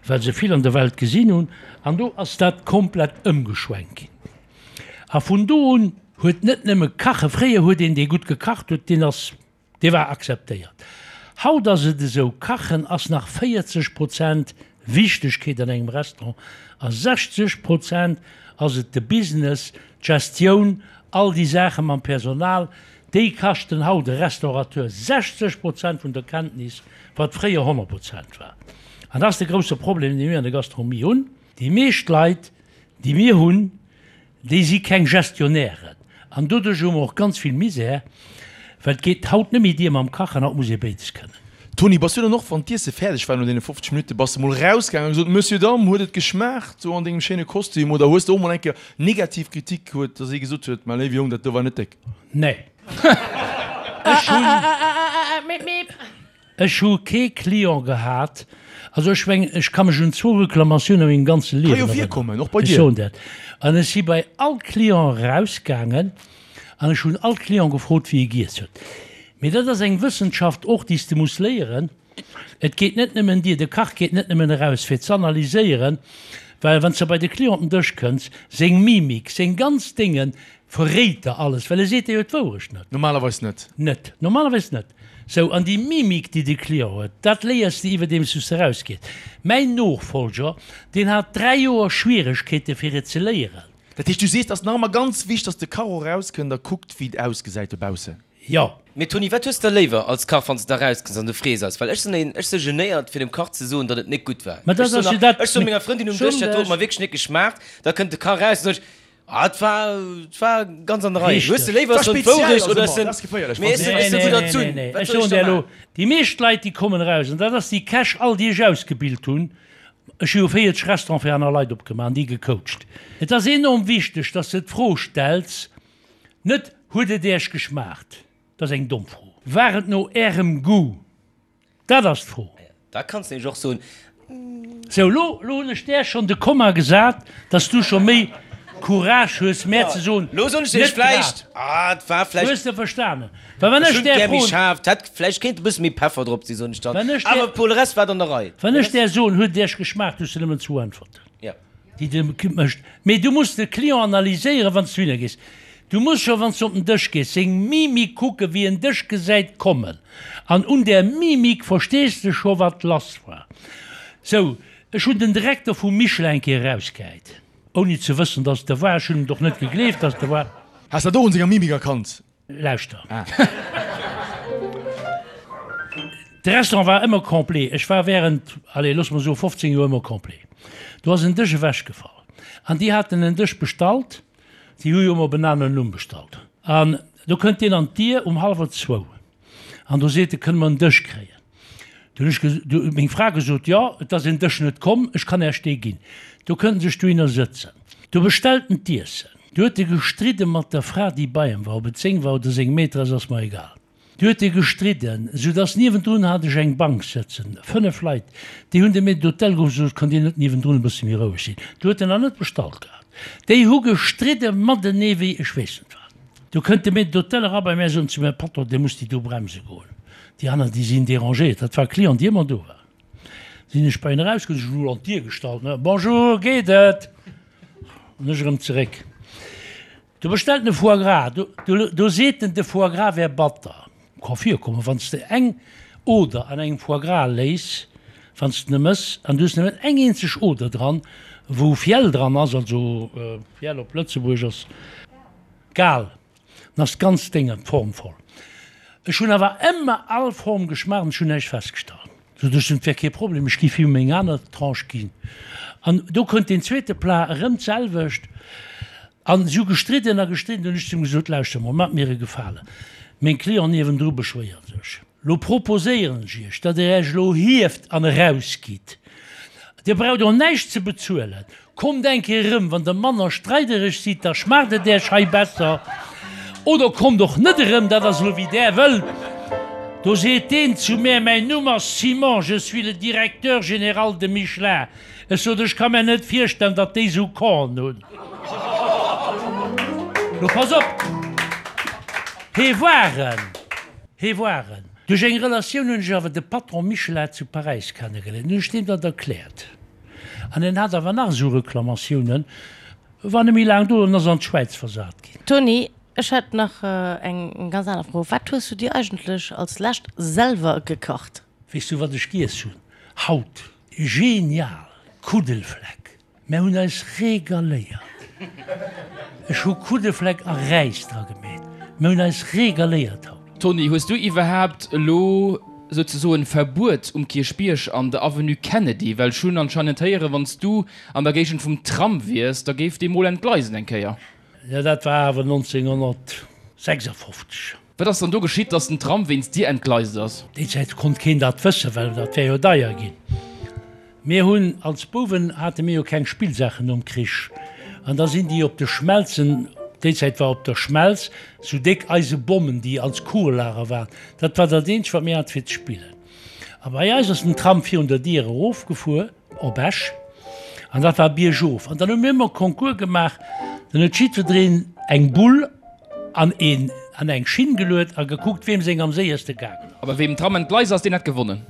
B: well se vill an der Welt gesinn hunn. An do ass dat komplett ëmgeschwenkt ginn. A vun do un huet net nëmme Kache, fréier huet een, dee gutt gekacht huet, deen ass Dee war akzeptéiert. Haut ass et esou, Kachen ass nach 40 Prozent Wichtegkeet an engem Restaurant a 60 Prozent ass et de Business, d'Gestioun, all déi Saache mam Personal. Déi kaschten haut e Restaurateur 60 Prozent vun der Kenntnis, wat fréier 100 Prozent war. An dat ass de grousse Problem, dee mir an der Gastronomie hunn. Déi meescht Leit, déi mir hunn, Déi si keng Gestionnairen an doduerch hu mer och ganz vill Misär, well et geet haut net méi dier mam Kachen, haut muss ee béides kënnen.
D: Toni, bass du dann och, wann d'Iesse fäerdeg war no deene 50 Minutten, bass de mol rausgaangen a gesot, Monsieur, Dame, huet et geschmaacht, sou an dengem schéine Kostüm, oder hues de och mol eng Kéier negativ Kritik huet, dass ee gesot huet, Mä léiwe Jong, dat do war net déck?
B: Nee. Ech hunn. Ech hu kee Client gehat, also ech mengen, ech ka mech un zwou Reklamatiounen a mengem ganze
D: Ka
B: Liewen
D: jo
B: erënneren.
D: virkommen, och bei
B: Ech
D: dir.
B: soen dat. An ech si bei all Client erausgaangen an ech hunn all Client gefrot, wéi e giess huet. Mee dat ass eng Wëssenschaft och, déi s de muss léieren. Et geet net nëmmen dir, de Kach geet net nëmmen eraus, fir z'analyséieren, well wann s de bei de Client op den Dësch kënns, seng Mimik, seng ganz Déngen. Verréit der alles, well e seet der jo d'Wourecht net.
D: Normalerweis net.
B: Net. Normalerweis net. Sou, an déi Mimik, déi de Client huet, dat léiers de iwwerdeems du s de erausgees. Mäin Nofolger, deen hat 3 Joer Schwieregkeete fir et ze léieren.
D: Dat heescht, du sees, et ass nach ëmmer ganz wichteg, dass de Kach och erauskënnt a kuckt, wéi et ausgesäit dobaussen.
B: Jo.
A: Mee Tony, wat hues de léiwer als Kach, wann s de da rauskënns an du frees eis? Well ech sinn een, ech si genéiert fir dem Kach ze soen, datt et nik gutt war.
B: Mä
A: Ech
B: dat
A: soen
B: ass jo
A: nach,
B: dat,
A: ech soe menger Frëndin um Dësch, dat do huet mer wierklech nik geschmaacht. Da kënnt de Kach eraus an sot ech, ah, et war, et war ganz an der Rei. Hues de
B: Richteg.
A: léiwer,
D: Dat
A: ech soen
D: speziell
A: d'Wourecht
D: ass
A: oder
D: ëmmer,
A: ech sinn,
D: dat ass geféierlech,
A: mee
D: wann
A: ech
D: s
A: sinn,
D: de
A: ech
B: Nee,
A: si
B: nee,
A: gutt
B: nee, nee,
A: erzunn.
B: nee.
A: Wat
B: Ech
A: soll ech
B: soen
A: da
B: der elo,
A: maachen?
B: déi meescht Leit, déi kommen eraus, an dat ass déi Käch all, déi ech ausgebilt hunn, ech hu jo 40 Restaurante fir aner Leit opgemaach an déi gecoacht, et ass enorm wichteg, dass de d'Fro stells, Net, Huet et Äech geschmaacht? Dat ass eng domm Fro. War et no Ärem Goût? Dat ass d'Fro.
A: Da kanns de nämlech och soen.
B: Sou, lo, lo hunn ech där schonn de Komma gesat, dass du scho méi Courage hues, mär ze soen,
A: Lo soen ech iech
B: net
A: vläicht,
B: grad.
A: ah, et war vläicht.
B: Hues de verstanen? Well wann
A: Ech
B: ech
A: hunn
B: där
A: gär méi
B: froen.
A: schaarf, et hätt vläicht kéint e bësse méi Peffer drop sinn, soen ech dann.
B: Wann ech där.
A: Awer pour le reste war et an der Rei.
B: Wann ech där soen, huet et iech geschmaacht, hues de nëmmen zwou Äntwerten.
A: Jo.
B: Déi de mécht. Mee du muss de Client analyséieren, wann s du hinner gees. Du muss scho, wann s du op den Dësch gees, seng Mimik kucken, wéi en dech gesäit kommen. An un där Mimik verstees de scho, wat lass war. Sou, ech hunn den Direkter vum Michelin eng Kéier erausgehäit, ouni ze wëssen, dass et e war. Ech hunn et och net gegleeft, dass et e war.
D: Has dat och un senger Mimik erkannt?
B: Lauschter. De Restaurant war ëmmer complet. Ech war während, allez, loosse mer soe 15 Joer ëmmer complet. Do ass en Dësch ewechgefall. An déi haten en Dësch bestallt. Déi hu jo ëmmer op en aneren Numm bestallt. An do kënnt deen an d'Dier um hallwer zwou. An do seet e, Kënne mer en Dësch kréien? Du hunn ech du huet meng Fra gesot, Jo, et ass en Dësch net komm, ech kann Äech dee ginn. Do kënnt en sech dohinner sëtzen. Do bestellt en d'Iessen. Du huet e gestridde mat der Fra, déi bei em war, ob et seng war oder seng Maîtresse, ass mer egal. Du huet e gestridden, sou dass niewendrun hat ech eng Bank sëtzen, 5 Leit, déi hunn de Maître d'hôtel geruff, gesot, Kënnt Dir net niewendrun e bësse méi roueg sinn? Du huet en nach net bestallt gehat. Déi hu gestridde matenee wéi ech weess net wat. Du kënnt de Maître d'hôtel era bei mär, sot zu mär, Patron, Dir musst déi do bremse goen. Déi aner, déi sinn dérangéiert. Dat war e Client, dee ëmmer do war. Sinn ech bei en erausgoen, ech hunn an d'Dier gestallt, ne, Bonjour, geet et? An ech erëm zeréck. Do bestellt en e Foie gras. Do, do, do seet en, de Foie gras wär batter. Ka virkommen, wann s de eng Oder an engem Foie gras léiss, wann s de en mëss, an du hues nëmmen eng eenzeg Oder dran, wou Fiel dran ass, also Fiel op Lëtzebuergesch ass Gal. Dann ass d'ganz Déng an d'Form voll. Ech hunn awer ëmmer all Form geschmaacht an ech hunn näischt festgestallt. Sot ech, et wär kee Problem, ech giff him meng aner Tranche ginn. An do kënnt deen zweete Plat, erëm d'selwecht. An si hu gestridden a gestridden. Dunn hunn ech zu him gesot, Lauschter mol, maacht mir e Gefalen, meng Clienten niewendru beschwéieren sech. Lo proposéieren ech Iech, datt Der Iech elo hieft an erausgitt. Dir braucht och näischt ze bezuelen. Kommt eng Kéier erëm, wann Der manner streidereg sidd, da schmaacht et Iech hei besser. Oder kommt och net erëm, dat ass elo wéi Der wëllt. Do seet deen zu mär, Mäin Numm ass Simon, je suis le directeur général de Michelin. Ech sot, Ech ka mär net virstellen, datt déi esou Corn hunn. Lo pass op, hee war en. Hee war en. Duerch eng Relatioun hunn ech awer de Patron Michelin zu Paräis kennegeléiert. Hunn ech deem dat erkläert. An en hat awer nach esou Reklamatiounen, war net méi laang do an ass an d'Schwäiz versat ginn.
G: Tony, ech hätt nach eng ganz aner Fro. Wat hues du dir eigentlech als lescht selwer gekacht?
B: Weess du wat ech giess hunn haut? Genial! Kuddelfleck. Mär hunn eis regaléiert. Ech hu Kuddefleck a Räis dra gemeet. Mär hunn eis regaléiert haut.
F: Tony, hues du iwwerhaapt elo souzesoen Verbuet um Kierchbierg an der Avenue Kennedy? Well ech hunn anscheinend héieren, wann s du an der Géigend vum Tram wiers, da géif dee mol entgleisen eng Kéier.
B: Jo, dat war awer 1956.
F: Wat ass dann do geschitt, dass den Tram wéinst dir entgleist ass?
B: Déi Zäit konnt keen dat wëssen, well dat wär jo deier ginn. Mir hunn als Bouwen hate mir jo keng Spillsaachen nom Krich an da sinn déi op de Schmelzen, déi Zäit war op der Schmelz sou déck eise Bommen, déi als Kugellager waren, dat war dat eenzegt wat mir hate fir ze spillen. A bei eis ass den Tram virun der Dier erofgefuer. Op Esch, an dat war biergof. An dann hu mir ëmmer Concours gemaach, dann huet jiddwereen eng Bull an een an eng Schinn geluet a gekuckt, weem seng am séierste gaangen ass.
F: A bei weem den Tram entgleist ass, deen hätt gewonnen.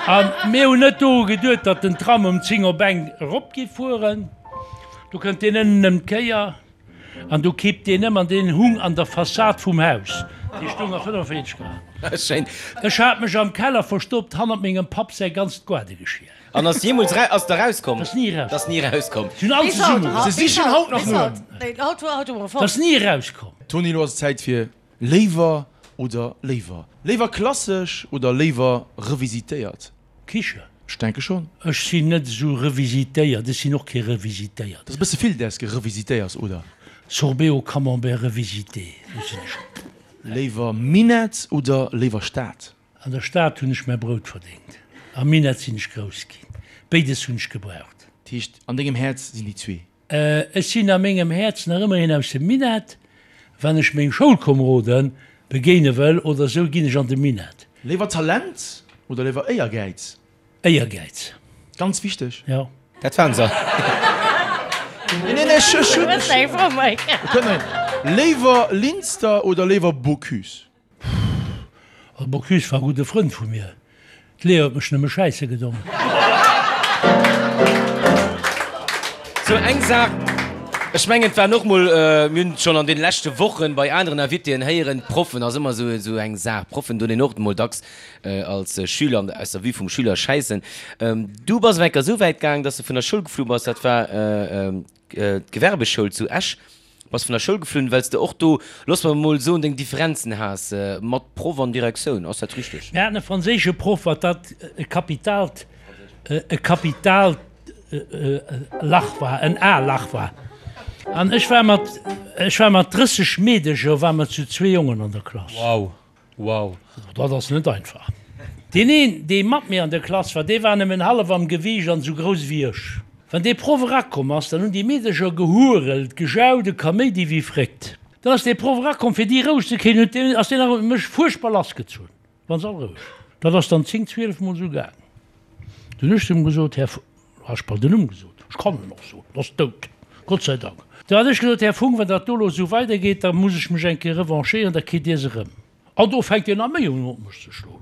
B: A mir hunn net doru geduet, datt den Tram um 10 op eng erop géif fueren. Do kënnt deen ënnen ëm d'Kéier. An do kippt deen ëm an deen hung an der Fassad vum Haus. Dee stoung a 45 Grad.
A: Schéin.
B: Ech hat mech am Keller verstoppt, hannert mengem Papp säi ganzt Gaardegeschier.
A: An ass jeemools era, ass der rauskomm?
B: Ass ni erauskomm.
A: Ass ni erauskomm.
B: Si hunn all zesumme.
D: Se sichen haut nach no em.
B: Ass ni erauskomm.
D: Toni, elo ass et Zäit fir Léiwer oder léiwer? Léiwer klassesch oder léiwer revisitéiert?
B: Kiche.
D: Ech denke schon.
B: Ech sinn net esou revisitéiert, ech sinn och kee revisitéiert.
D: Dat ass e bësse vill, däers gerevisitéiers, oder?
B: Sorbet au camembert revisité, do sinn ech.
D: Léiwer Minett oder léiwer Stad?
B: An der Stad hunn ech mäi Brout verdéngt, am Minett sinn ech grouss ginn. Béides hunn ech gebraucht.
D: Dat heescht, an dengem Häerz sinn déi zwee?
B: Ech sinn a mengem Häerz nach ëmmer een aus dem Minett. Wann ech meng Schoulkomeroden begéine wëll oder sou, ginn ech an de Minett.
D: Léiwer Talent oder léiwer Éiergäiz?
B: Éiergäiz.
D: Ganz wichteg.
B: Jo.
A: Dat waren se.
D: Nee, nee, ech hunn. Léiwer Linster oder léiwer Bocuse?
B: Pff, Bocuse war e gudde Frënd vu mir. D'Léa huet mech nëmme schäisse gedong.
A: Sou eng Saach, ech mengen et waren och mol, mir hunn et schonn an deene leschte Wochen bei aneren Invitéen héieren, d'Proffen ass ëmmer esou esou eng Saach. Proffen doen een och mol dacks als Schüler an aus der Vue vum Schüler schäissen. Du bass awer enker esou wäit gaang, dass de vun der Schoul geflu bass, dat war d'Gewerbeschoul zu Esch. Bass vun der Schoul geflunn, well s de och do, looss mer emol soen, deng Differenzen has mat Proff an Direktioun. Ass dat richteg?
B: Mir haten e franséische Proff, wat dat e kapitaalt, e kapitaalt Lach war, en A-Lach war. An ech war mat, ech war mat 30 Meedecher, ware mer zu zwee Jongen an der Klass.
C: Wow, wow.
B: Dat ass net einfach. Deen een, dee mat mir an der Klass war, dee war nëmmen hallef am Gewiicht an esou grouss ewéi ech. Wann dee Proff erakomm ass, dann hunn déi Meedercher gehurelt, gejaut, e Kaméidi wéi fréckt. Dann ass dee Proff erakomm, fir déi roueg ze kréien, huet deen, ass deen nach op mech fuerchtbar lassgezunn. Waren se all roueg. Dat ass dann 10, 12 mol esou gaang. Dunn hu ech zu em gesot, Här, hu ech bal den Numm gesot, ech kann en och soen, en ass dout, Gott sei Dank. Du hat ech gesot, Här Funck, wann dat do elo esou weidergeet, da muss ech mech eng Kéier revanchéieren, da kritt Dir se erëm. An do fänkt deen nach méi un op mech ze schloen.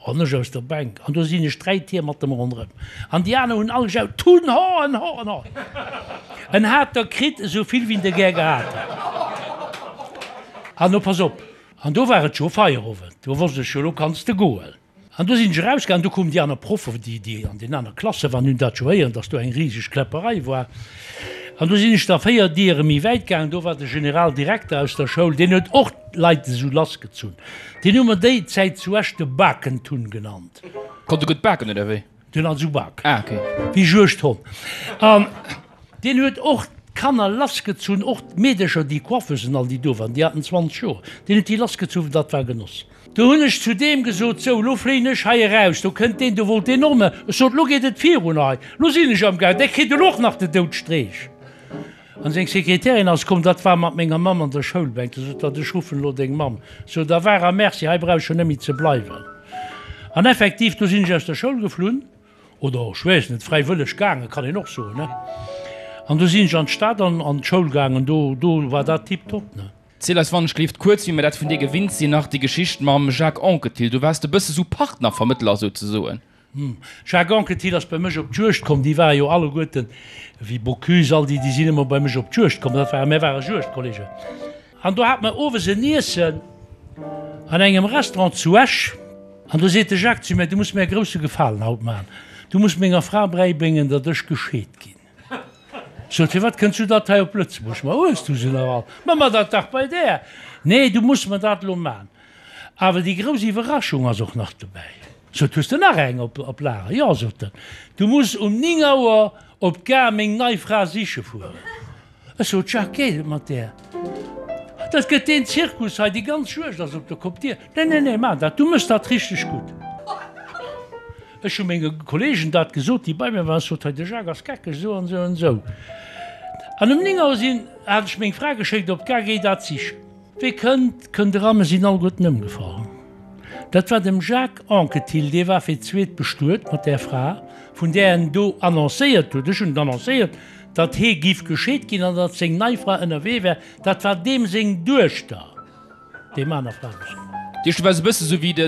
B: An ech aus der Bänk. An do sinn ech 3 Tier mat em ronderëm. An déi aner hunn all gejaut, Tun ho en ho en ho. En hat der kritt esou vill wéi en der gär gehat hätt. An lo pass op, an do war et scho Feierowend, do wosst ech jo, lo kanns de goen. An do sinn ech erausgaangen, do koumen déi aner Proffen, déi, déi an den aner Klasse waren, hunn dat scho héieren, dass do eng riseg Kläpperei war. An do sinn ech da 4 Diere méi wäit gaangen, do war de Generaldirekter aus der Schoul, deen huet och d'Leit esou lassgezunn. Deen hu mer déi Zäit zu Esch de Bakentunn genannt.
F: Konnt e gutt baken, oder wéi?
B: Deen hat esou Baken.
F: Ah, okay.
B: Wéi Juegdhonn. An deen huet och d'Kanner lassgezunn, och d'Meedercher, déi Coiffeusen all, déi do waren, déi haten 20 Joer, deen huet déi lassgezunn, dat war Genoss. Do hunn ech zu deem gesot, Sou, elo fléien ech hei eraus, do kënnt deen, do wollt deen och nach. Ech sot, Elo geet et virun hei, elo sinn ech am Gaang, dee kritt elo och nach de Doudstreech. An seng Sekretärin ass komm, dat war mat menger Mamm an der Schoulbänk, du sot hatt, ech ruffen elo deng Mamm. Sou, da war a Merci, hei brauch ech jo net méi ze bleiwen. An effektiv, du sinn ech aus der Schoul geflunn, oder ech weess net, fräiwëlleg gaangen, kann een och soen, ne. An du sinn ech an d'Stad an an d'Schoul gaangen, do, do war dat tiptop, ne.
F: Ziel eis wann ech gleeft kuerz, wéi mir dat vun dir gewinnt sinn, nach déi Geschicht mam Jacques Anquetil. Du waars e bësse sou Partnervermëttler souzesoen.
B: Jacques Anquetil ass bei mech op d'Juegd komm, déi ware jo alleguerten, wéi Bocuse, all déi, déi sinn ëmmer bei mech op d'Juegd komm, dat ware, mär ware Juegdkollegen. An do hate mer owes en Iessen an engem Restaurant zu Esch an do seet de Jacques zu mär, Du muss mär e grousse Gefalen haut maachen, du muss menger Fra bräibréngen, datt ech gescheet ginn. Sot, Firwat kënns du dat hei op Lëtzebuerg? Ma hues du se nach all? Ma ma dat dach bei där! Nee, du muss mer dat elo man. Awer déi grouss Iwwerraschung ass och nach dobäi. Sot, Hues de nach eng op Lager? Jo, sot en, du muss um 9 Auer op d'Gare meng nei Fra siche fueren. Ech sot, Jacques, geet et mat där? Dat gëtt deen Zirkus hei, déi ganz Juegd ass op der Kopp. Dir, Nee, nee, nee, man dat, du méchs dat richteg gutt. Ech hu menge Kollegen dat gesot, déi bei mir waren. Ech sot, Hei, de Jacques ass geckeg, esou an esou an esou. An um 9 Auer sinn, hat ech meng Fra geschéckt op d'Gare, Géi dat sichen. Wee kënnt, kënnt eran, mer sinn alleguerten ëmgefall. Dat war dem Jacques Anquetil, dee war fir d'zweet bestuet mat där Fra, vun där en do annoncéiert huet, ech hunn et annoncéiert, datt hee giff gescheet ginn an datt seng nei Fra ënnerwee wär. Dat war deem seng Duechter. Deem aner Fra gesot.
F: Dir, du waars e bësse sou wéi de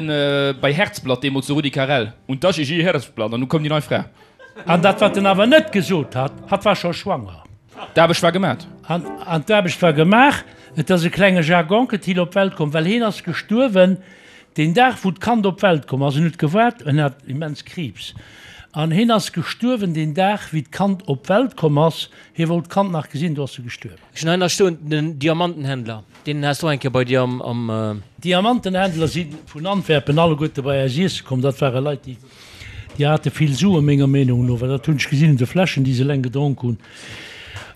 F: bei Herzblatt deemools, de Rudi Carrell, und das ist ihr Herzblatt, an du koum déi nei Fra.
B: An dat wat en awer net gesot hat, hatt war scho schwanger.
F: D'Aarbecht war gemat.
B: An d'Aarbecht war gemaach. Et ass e klenge Jacques Anquetil op d'Welt komm, well heen ass gestuerwen deen Dag, wou d'Kand op d'Welt komm ass. En huet gewaart, en hat immens Kriibs, an heen ass gestuerwen deen Dag, wéi d'Kand op d'Welt komm ass. Hie wollt d'Kand nach gesinn, do ass e gestuerwen.
C: Ech hunn hei nach stoen, den Diamantenhändler, deen has du och eng Kéier bei dir am.
B: Diamantenhändler si vun Antwerpen alleguerte bei eis iesse komm. Dat ware Leit, déi. Déi hate vill Suen, menger Meenung no, well dat hunn ech gesinn un de Fläschen, déi se eleng gedronk hunn.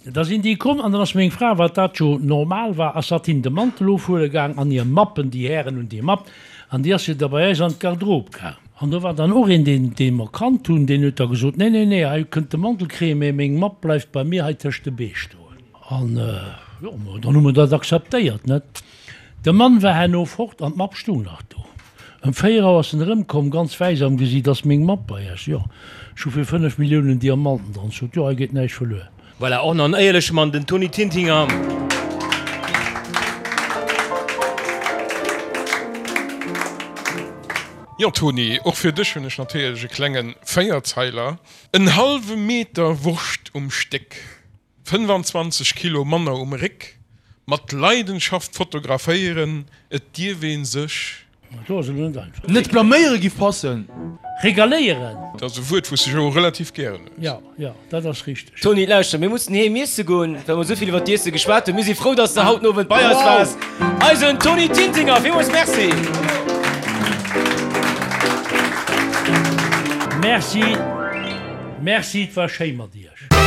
B: Da sinn déi komm an dann ass meng Fra, wat dat jo normal war, ass hatt hinnen de Mantel ofhuele gaang an hir Mappen, déi Hären hunn déi Mapp, an déi ass jo da bei eis an d'Garderobe gaang. An do war dann och een, deen, dee mer kannt hunn, deen huet da gesot, Nee, nee, nee, hei kënnt de Mantel kréien, mä meng Mapp bleift bei mir hei tëscht de Bee stoen. An, jo, dann hu mer dat akzeptéiert, net? De Mann war herno fort an d'Mapp stung nach do. Ëm 4 Auer ass en erëmkomm, ganz wäiss am Gesiit, Ass meng Mapp bei Iech? Jo, ech hu fir 5 Milliounen Diamanten dran. Sot, Jo, hei geet näischt verluer.
C: Voilà, och nach en éierleche Mann, den Tony Tintinger.
E: Jo Tony, och fir dech hunn ech natierlech e klenge Véierzeiler. En hallwe Meter Wurscht um Stéck. 25 Kilo manner um Réck, mat Leidenschaft fotograféieren, et dierf een sech.
B: Do ass elo net einfach.
D: Net blaméiere giff passen.
B: Regaléieren.
E: Dat ass e Wuert, wou s de jo relativ gären hues.
B: Jo, jo, dat ass richteg.
A: Tony, lauschter, mir mussen heem iesse goen, well mer esou vill iwwer d'Iesse geschwat hunn. Mir si frou, dass de haut den Owend bei eis waars. Eisen Tony Tintinger, villmools Merci!
B: Merci, merci, et war schéi mat iech.